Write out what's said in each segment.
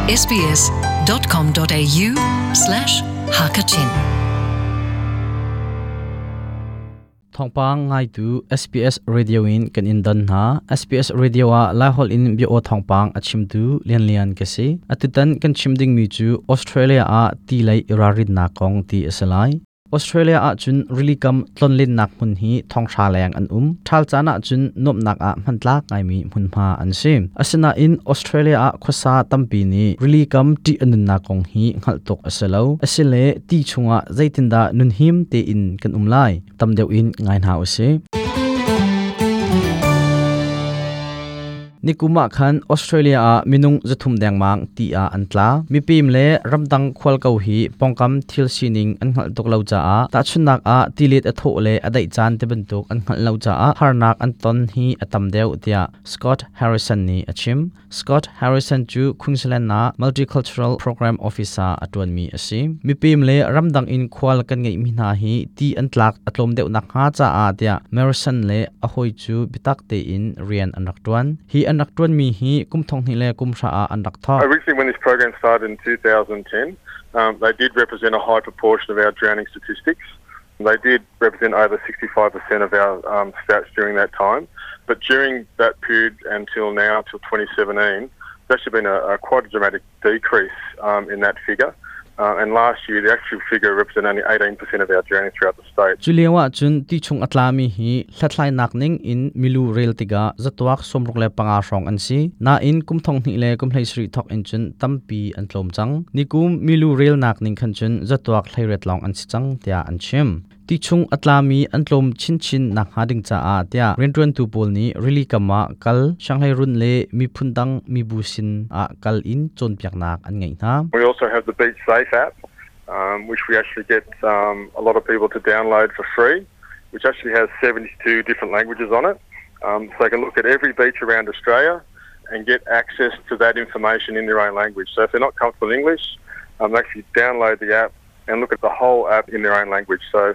sbs.com.au slash hakachin Thawngpang ngaitu SBS Radio in kan in don hna. SBS Radio ah Laiholh in bia aw thawngpang a chimtu Lian Lian ka si. Atutan kan chim dingmi cu Australia ah ti lei i ralrinnak kong ti a si lai. Australia ahcun rilikam tlonlennak hmun hi thonghra leng an um. Ṭhal caan ahcun nuamhnak ah hmantlak ngaimi hmunhma an si. Asinain Australia ah khuasa tampi nih rilikam ṭih a nunnak kong hi hngalh tuk a si lo. Asile ti chungah zeitindah nunhim tein kan um lai? Tam deuh in ngai hna usih. Nikum ah khan Australia ah minung 300 dengmang ti ah an tla. Mipim le ramdang khual ko hi pongkam thil sining an hngalh tuk lo caah tahchunhnak ah tilet a thawh le a daih caan ti bantuk an hngalh lo caah harnak an ton hi a tam deuh tiah Scott Harrison nih a chim. Scott Harrison cu Queensland ah Multicultural Program Officer a ṭuanmi a si. Mipim le ramdang in khual kan ngeihmi hna hi ti an tlak a tlawm deuh nakhnga caah tiah Marison le a hawi cu biatak tein rian an rak ṭuan. Hi an rak ṭuanmi hi kum thong hnih le kum hra ah an rak thawk. Originally when this program started in 2010, they did represent a high proportion of our drowning statistics. They did represent over 65% of our stats during that time. But during that period until now, till 2017, there's actually been a quite a dramatic decrease in that figure. And last year, the actual figure represented only 18% of our drowning throughout the state. Cu lio ahcun ti chung a tlami hi hlathlainak ning in milu rel tikah zatuak 65 hrawng an si. Nain kum thong hnih le kum 17 thawk in cun tampi an tlawm cang. Nikum milu relnak ning khan cun zatuak 18 lawng an si cang tiah an chim. Ti chung a tlami an tlawm chinchin nakhnga ding caah tiah rianṭuantu pawl nih rili kam ah kal, sianghleirun le miphun dang mibu sin ah kal in cawnpiaknak an ngeih hna. We also have the Beach Safe app, which we actually get a lot of people to download for free, which actually has 72 different languages on it. So they can look at every beach around Australia and get access to that information in their own language. So if they're not comfortable in English, they actually download the app and look at the whole app in their own language. So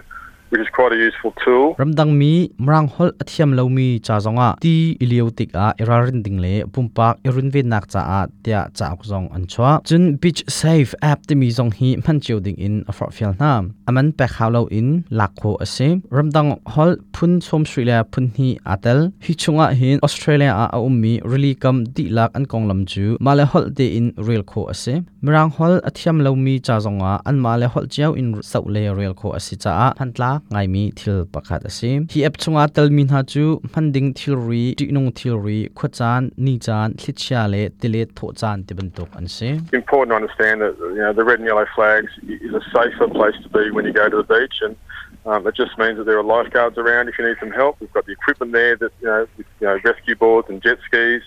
which is quite a useful tool. Ramdangmi Mirang holh a thiam lomi ca zongah ti i lio tikah i ralrin ding le pumpak i runvennak caah tiah cauk zong an chuah. Cun Beach Safe app timi zong hi hman cio ding in a forhfial hna. A man pek hau loin lak khawh a si. Ramdang holh phun 30 le phun hnih aa tel. Hi chungah hin Australia ah a ummi rili kam dihlak an konglam cu mah le holh tein rel khawh a si. Mirang holh a thiam lomi ca zongah anmah le holh cio in zoh le rel khawh a si caah hmantlak ngaimi thil pakhat a si. Hi app chungah telmi hna cu hman ding thilri, ṭihnung thilri, khuacaan, nicaan, thlichia le tilet thawhcaan ti bantuk an si. Important to understand that the red and yellow flags is a safer place to be when you go to the beach and it just means that there are lifeguards around if you need some help. We've got the equipment there that with rescue boards and jet skis,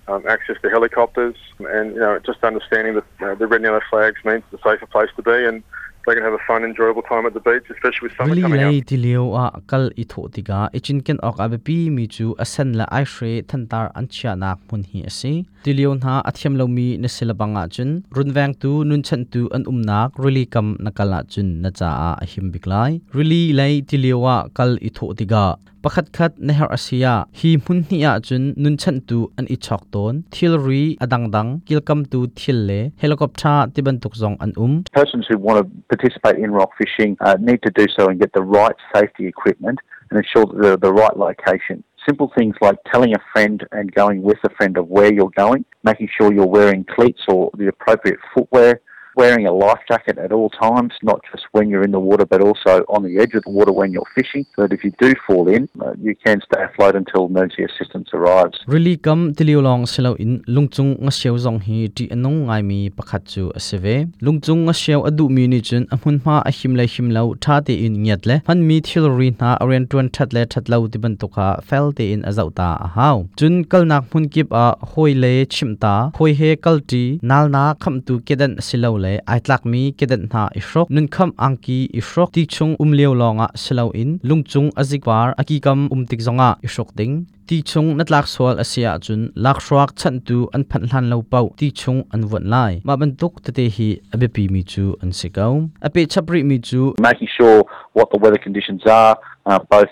access to helicopters and just understanding that the red and yellow flags means it's a safer place to be and they can have a fun, enjoyable time at the beach, especially with summer Rili coming lei up. tilio ah kal i thawh tikah i cinken awk a biapi mi cu a sen le aihre thantar an chiahnak hmun hi a si. Tilio hna a thiam lomi na si lebang ahcun runvengtu nunchanhtu an umnak rili kam na kal ahcun na caah a him bik lai. Rili lei tilio ah kal i thawh tikah Pakhatkhat na herh a si ah hi hmun hnih ahcun nunchanhtu an i chawk tawn. Thilri a dangdang, kilkamtu thil le helicopter ti bantuk zong an um. Persons who want to participate in rock fishing need to do so and get the right safety equipment and ensure that they're at the right location. Simple things like telling a friend and going with a friend of where you're going, making sure you're wearing cleats or the appropriate footwear, wearing a life jacket at all times, not just when you're in the water, but also on the edge of the water when you're fishing, so that if you do fall in, you can stay afloat until emergency assistance arrives. Rili kam tilio lawng si loin lungcung ngasiau zong hi ṭih a nung ngaimi pakhat cu a si ve. Lungcung ngasiau a duhmi nih cun a hmunhma a him le him lo ṭha tein ngiat le hmanmi thilri hna a rianṭuan ṭhat le ṭhat lo ti bantuk kha fel tein a zoh ta a hau. Cun kalnak hmun kip ah hawi le chimh ta, hawi he kalṭi, nalnak khamhtu kedan silole ai tlakmi kedan hna i hruk, nunkhamh angki i hruk, ti chung um lio lawngah si loin lungcung a zikvar a kikam um tik zongah i hruk ding. Ti chung na tlak sual a si ahcun lakhruak chanhtu an phanh hlan lo paoh ti chung an vuanh lai. Mah bantuk tete hi a biapimi cu an si ko. A pehchap rihmi cu making sure what the weather conditions are, both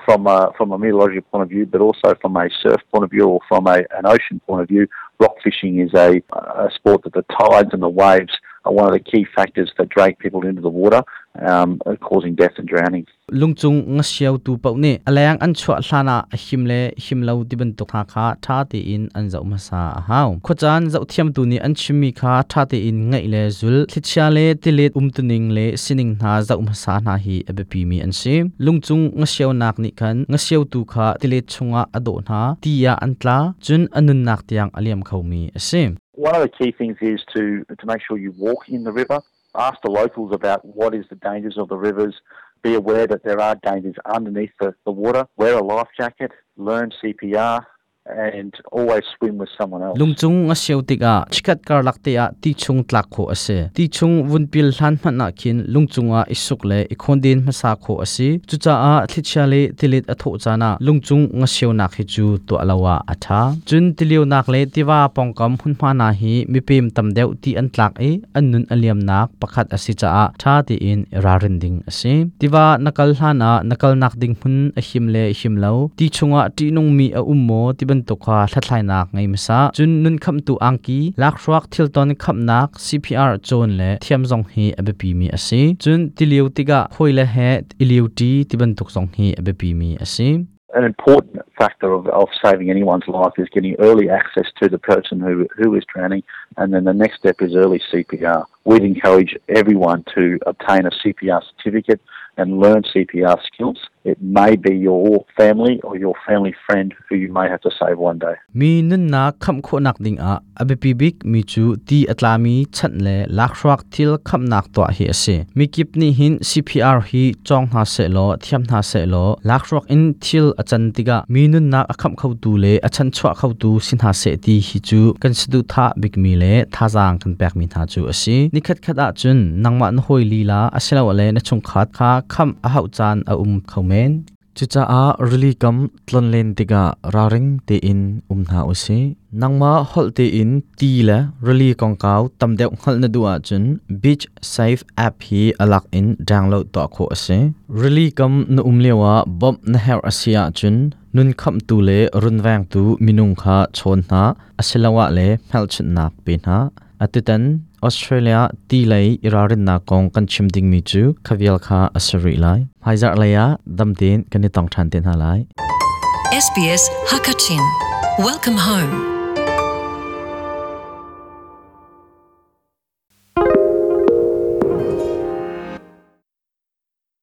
from a, from a meteorological point of view, but also from a surf point of view or from a, an ocean point of view. Rock fishing is a, a sport that the tides and the waves are one of the key factors that drag people into the water, causing death and drowning. Lungchung ngasiau tu pau ne alayang an chua hlana him le him lo ti bantuk tha kha tha te in an zau masa a hau khochan zau thiam tu ni an chimmi kha tha te in ngai le zul thlichia le tilet umtuning le sining hna zau masa hna hi abiapi mi an si lungchung ngasiau nak ni khan ngasiau tu kha tilet chunga ado hna tia an tla chun anun nak tiang aliam khomi ase. One of the key things is to make sure you walk in the river. Ask the locals about what is the dangers of the rivers. Be aware that there are dangers underneath the water. Wear a life jacket, learn CPR, and always swim with someone else. Lungchung a siau tikah chikat karlak te ah ti chung tlak kho ase. Ti chung vunpil hlan hmanh ah khin lungchung ah isuk le ikhonden hmasa kho ase. Cucaah thlichia le tilet a thawh caan ah lungchung nga siaunak hi cu tuah lo ah a ṭha. Cun tilionak le tiva pawngkam hmunhma hna hi mipem tam deuh ti an tlak i an nun a liamnak pakhat a si caah ṭha tein i ralrin ding a si. Tiva na kal hlan ah na kalnak ding hmun a him le him lo, ti chungah ṭihnungmi a um maw ti bantuk kha hlathlainak ngei hmasa. Cun nun khamhtu angki, lakhruak thilton khamhnak CPR cawn le thiam zong hi a biapimi a si. Cun tilio tikah hawile he i lioṭi ti bantuk zong hi a biapimi a si. An important factor of saving anyone's life is getting early access to the person who is drowning, and then the next step is early CPR. We'd encourage everyone to obtain a CPR certificate and learn CPR skills. It may be your family or your family friend who you may have to save one day. Mi nunnak khamh khawhnak dingah a biapi bik mi cu ti a tlami chanh le lakhruak thil khamhnak tuah hi a si. Mikip nih hin CPR hi cawng hna sehlaw thiam hna sehlaw lakhruak in thil a can tikah mi nunnak a khamh khotu le a chanchuah khotu si hna seh ti hi cu kan saduhthah bikmi le thazaang kan pekmi hna cu a si. Nikhat khat ahcun nangmah na hawi lila asilole na chungkhat kha khamh a hauh caan a um kho men. Cucaah rili kam tlonlen tikah ralring tein um hna u sih. Nangmah holh tein ti le rili kongkau tam deuh hngalh na duh ahcun Beach Safe app hi a lak in download tuah khawh a si. Rili kam na um lioah bawmh na herh a si ahcun nun khamhtu le runvengtu minung kha chawn hna asiloah le hmelchunhnak pe hna. Atutan Australia ti lei i ralrinnak kong kan chim dingmi cu khavial kha a si rih lai. Hmaizarh lei ah dam tein kan i tong ṭhan te hna lai. SBS Hakachin. Welcome home.